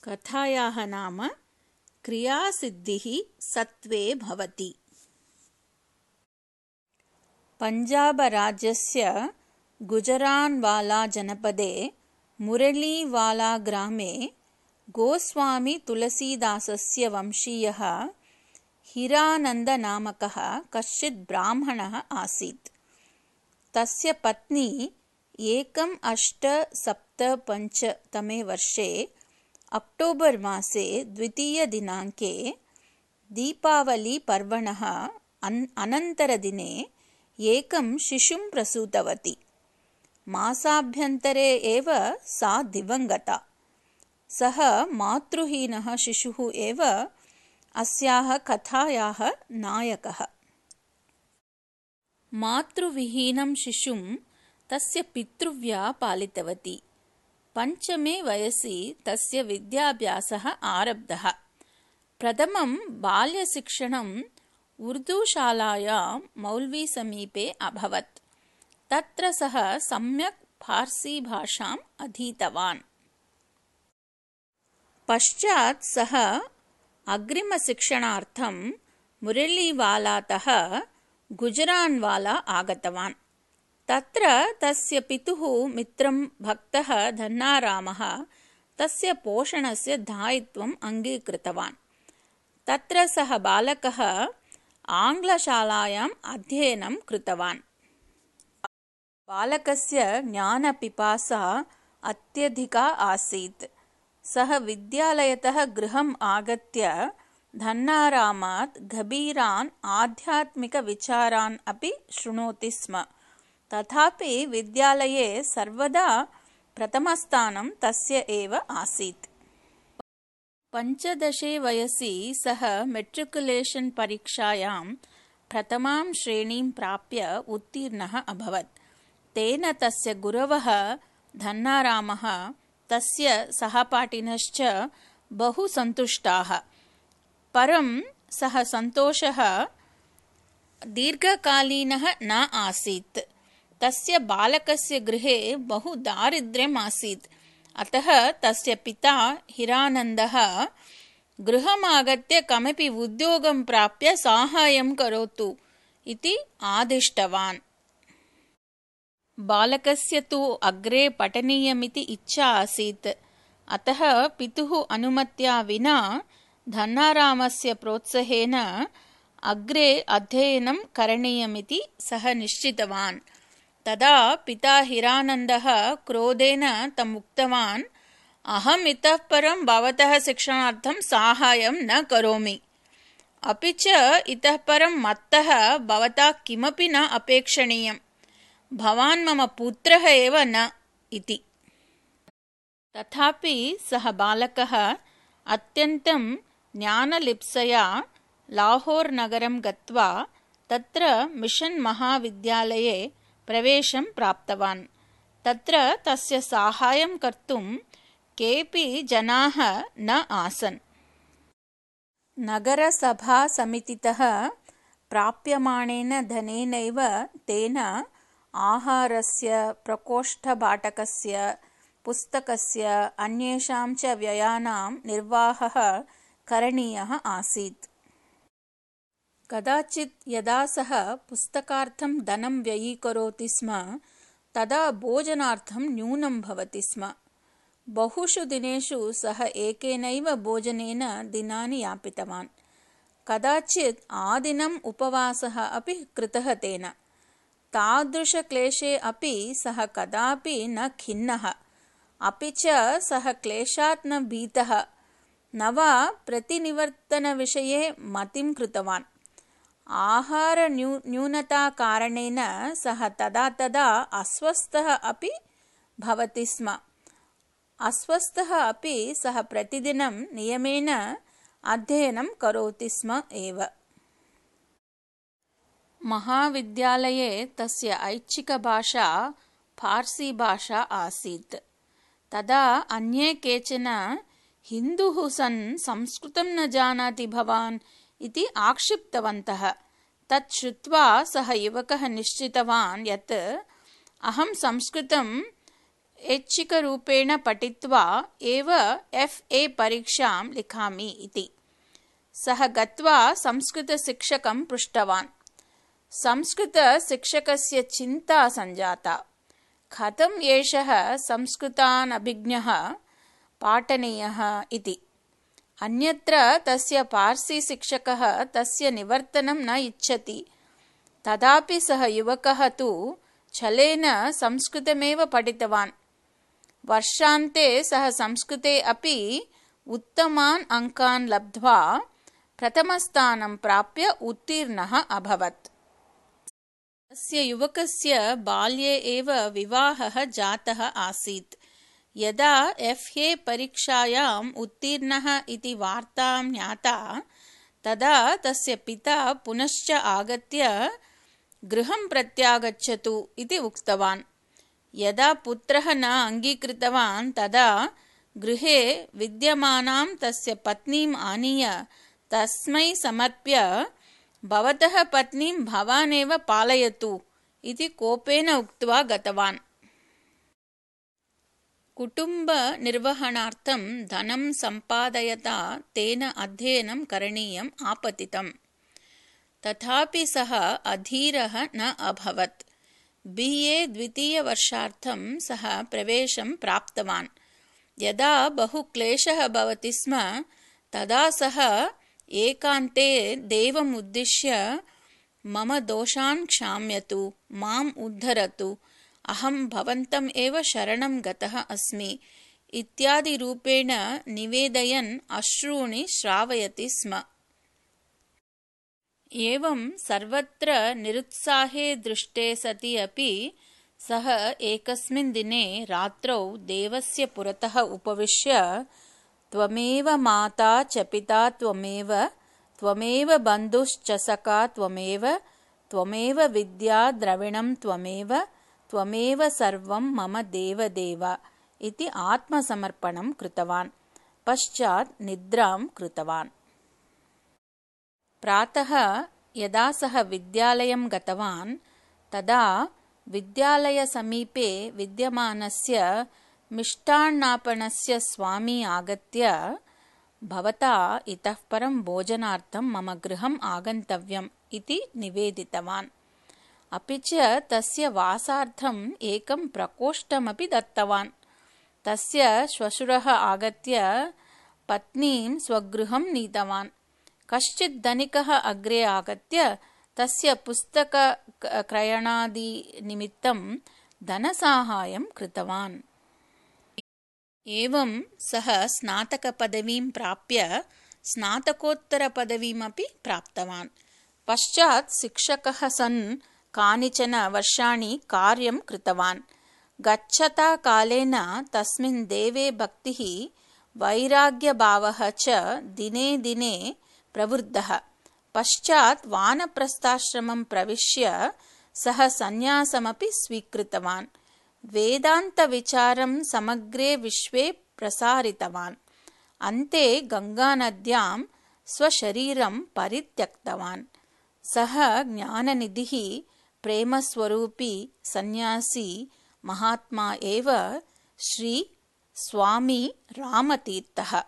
कथायाः नाम क्रियासिद्धिः सत्त्वे भवति। पञ्जाबराज्यस्य गुजरान्वाला जनपदे मुरलीवाला ग्रामे गोस्वामी तुलसीदासस्य वंशीयः हिरानन्दनामकः कश्चित् ब्राह्मणः आसीत्। तस्य पत्नी 1875 तमे वर्षे अक्टोबर् मासे 2 दिनाङ्के दीपावलीपर्वणः अनन्तरदिने एकं शिशुं प्रसूतवती। मासाभ्यन्तरे एव सा दिवङ्गता। सः मातृहीनः शिशुः एव अस्याः कथायाः नायकः। मातृविहीनं शिशुं तस्य पितृव्या पालितवती। 5मे वयसि तस्य विद्याभ्यासः आरब्धः। प्रथमं बाल्यशिक्षणं उर्दूशालायां मौल्वीसमीपे अभवत्। तत्र सः सम्यक् फार्सीभाषाम् अधीतवान्। पश्चात् सः अग्रिमशिक्षणार्थं मुरलीवालातः गुजरान्वाला आगतवान्। तत्र तस्य पितुः मित्रं भक्तः धन्नारामः तस्य पोषणस्य दायित्वम् अङ्गीकृतवान्। तत्र सः बालकः आङ्ग्लशालायाम् अध्ययनं कृतवान्। बालकस्य ज्ञानपिपासा अत्यधिका आसीत्। सः विद्यालयतः गृहम् आगत्य धन्नारामात् गभीरान् आध्यात्मिकविचारान् अपि शृणोति स्म। तथापि विद्यालये सर्वदा प्रथमस्थानं तस्य एव आसीत्। 15 वयसि सः मेट्रिकुलेशन् परीक्षायां प्रथमां श्रेणीं प्राप्य उत्तीर्णः अभवत्। तेन तस्य गुरवः धन्नारामः तस्य सहपाठिनश्च बहु सन्तुष्टाः। परं सः सन्तोषः दीर्घकालीनः न आसीत्। तस्य बालकस्य गृहे बहु दारिद्र्यम् आसीत्। अतः तस्य पिता हिरानन्दः गृहमागत्य कमपि उद्योगं प्राप्य साहाय्यं करोतु इति आदिष्टवान्। बालकस्य तु अग्रे पठनीयमिति इच्छा आसीत्। अतः पितुः अनुमत्या विना धन्नारामस्य प्रोत्साहेन अग्रे अध्ययनं करणीयमिति सः निश्चितवान्। तदा पिता हिरानन्दः क्रोधेन तम् उक्तवान्, अहम् इतः परं भवतः शिक्षणार्थं साहाय्यं न करोमि। अपि च इतः परं मत्तः भवता किमपि न अपेक्षणीयम्। भवान् मम पुत्रः एव न इति। तथापि सः बालकः अत्यन्तं ज्ञानलिप्सया लाहोर् नगरं गत्वा तत्र मिशन् महाविद्यालये प्रवेशं प्राप्तवान्। तत्र तस्य साहाय्यं कर्तुं केऽपि जनाः न आसन्। नगरसभासमितितः प्राप्यमाणेन धनेनैव तेन आहारस्य, प्रकोष्ठभाटकस्य, पुस्तकस्य, अन्येषां च व्ययानां निर्वाहः करणीयः आसीत्। कदाचित् यदा सः पुस्तकार्थं धनं व्ययीकरोति स्म तदा भोजनार्थं न्यूनं भवति स्म। बहुषु दिनेषु सः एकेनैव भोजनेन दिनानि यापितवान्। कदाचित् आदिनम् उपवासः अपि कृतः तेन। तादृशक्लेशे अपि सः कदापि न खिन्नः। अपि च सः क्लेशात् न भीतः, न वा प्रतिनिवर्तनविषये मतिं कृतवान्। आहारन्यूनताकारणेन सः तदा तदा अस्वस्थः अपि भवति स्म। अस्वस्थः अपि सः प्रतिदिनं नियमेन अध्ययनं करोति स्म एव। महाविद्यालये तस्य ऐच्छिकभाषा फार्सीभाषा आसीत्। तदा अन्ये केचन हिन्दुः सन् संस्कृतं न जानाति भवान् इति आक्षिप्तवन्तः। तत् श्रुत्वा सः युवकः निश्चितवान् यत् अहं संस्कृतं ऐच्छिकरूपेण पठित्वा एव FA परीक्षां लिखामि इति। सः गत्वा संस्कृतशिक्षकं पृष्टवान्। संस्कृतशिक्षकस्य चिन्ता सञ्जाता। कथम् एषः संस्कृतानभिज्ञः पाठनीयः इति। अन्यत्र तस्य पार्सी शिक्षकः तस्य निवर्तनं न इच्छति। तथापि सः युवकः तु छलेन संस्कृतमेव पठितवान्। वर्षान्ते सः संस्कृते अपि उत्तमान् अङ्कान् लब्ध्वा प्रथमस्थानं प्राप्य उत्तीर्णः अभवत्। तस्य युवकस्य बाल्ये एव विवाहः जातः आसीत्। यदा FA परीक्षायाम् उत्तीर्णः इति वार्ता ज्ञाता तदा तस्य पिता पुनश्च आगत्य गृहं प्रत्यागच्छतु इति उक्तवान्। यदा पुत्रः न अङ्गीकृतवान् तदा गृहे विद्यमानां तस्य पत्नीम् आनीय तस्मै समर्प्य भवतः पत्नीं भवानेव पालयतु इति कोपेन उक्त्वा गतवान्। कुटुम्बनिर्वहणार्थं धनं सम्पादयता तेन अध्ययनं करणीयम् आपतितम्। तथापि सः अधीरः न अभवत्। BA द्वितीयवर्षार्थं सः प्रवेशं प्राप्तवान्। यदा बहु क्लेशः भवति स्म तदा सः एकान्ते देवम् उद्दिश्य मम दोषान् क्षाम्यतु, माम् उद्धरतु, अहं भवन्तम् एव शरणं गतः अस्मि इत्यादि रूपेण निवेदयन् अश्रूणि श्रावयति स्म। एवं सर्वत्र निरुत्साहे दृष्टे सति अपि सः एकस्मिन् दिने रात्रौ देवस्य पुरतः उपविश्य त्वमेव माता च पिता त्वमेव, त्वमेव बन्धुश्च सखा त्वमेव, त्वमेव विद्या द्रविणं त्वमेव, त्वमेव सर्वं मम देवदेव इति आत्मसमर्पणं कृतवान्। पश्चात् निद्रां कृतवान्। प्रातः यदा सः विद्यालयं गतवान् तदा विद्यालयसमीपे विद्यमानस्य मिष्टान्नापणस्य स्वामी आगत्य भवता इतः परं भोजनार्थं मम गृहम् आगन्तव्यम् इति निवेदितवान्। अपि च तस्य वासार्थम् एकं प्रकोष्ठमपि दत्तवान्। तस्य श्वशुरः आगत्य पत्नीं स्वगृहं नीतवान्। कश्चित् धनिकः अग्रे आगत्य तस्य पुस्तकक्रयणादिनिमित्तं धनसाहाय्यं कृतवान्। एवं सः स्नातकपदवीं प्राप्य स्नातकोत्तरपदवीमपि प्राप्तवान्। पश्चात् शिक्षकः सन् कानिचन वर्षाणि कार्यं कृतवान्। गच्छता कालेन तस्मिन् देवे भक्तिः वैराग्यभावः च दिने दिने प्रवृद्धः। पश्चात् वानप्रस्थाश्रमं प्रविश्य सः सन्यासमपि स्वीकृतवान्। वेदान्तविचारं समग्रे विश्वे प्रसारितवान्। अन्ते गङ्गानद्यां स्वशरीरं परित्यक्तवान्। सः ज्ञाननिधिः, प्रेमस्वरूपी सन्यासी महात्मा एव श्री स्वामी रामतीर्थः।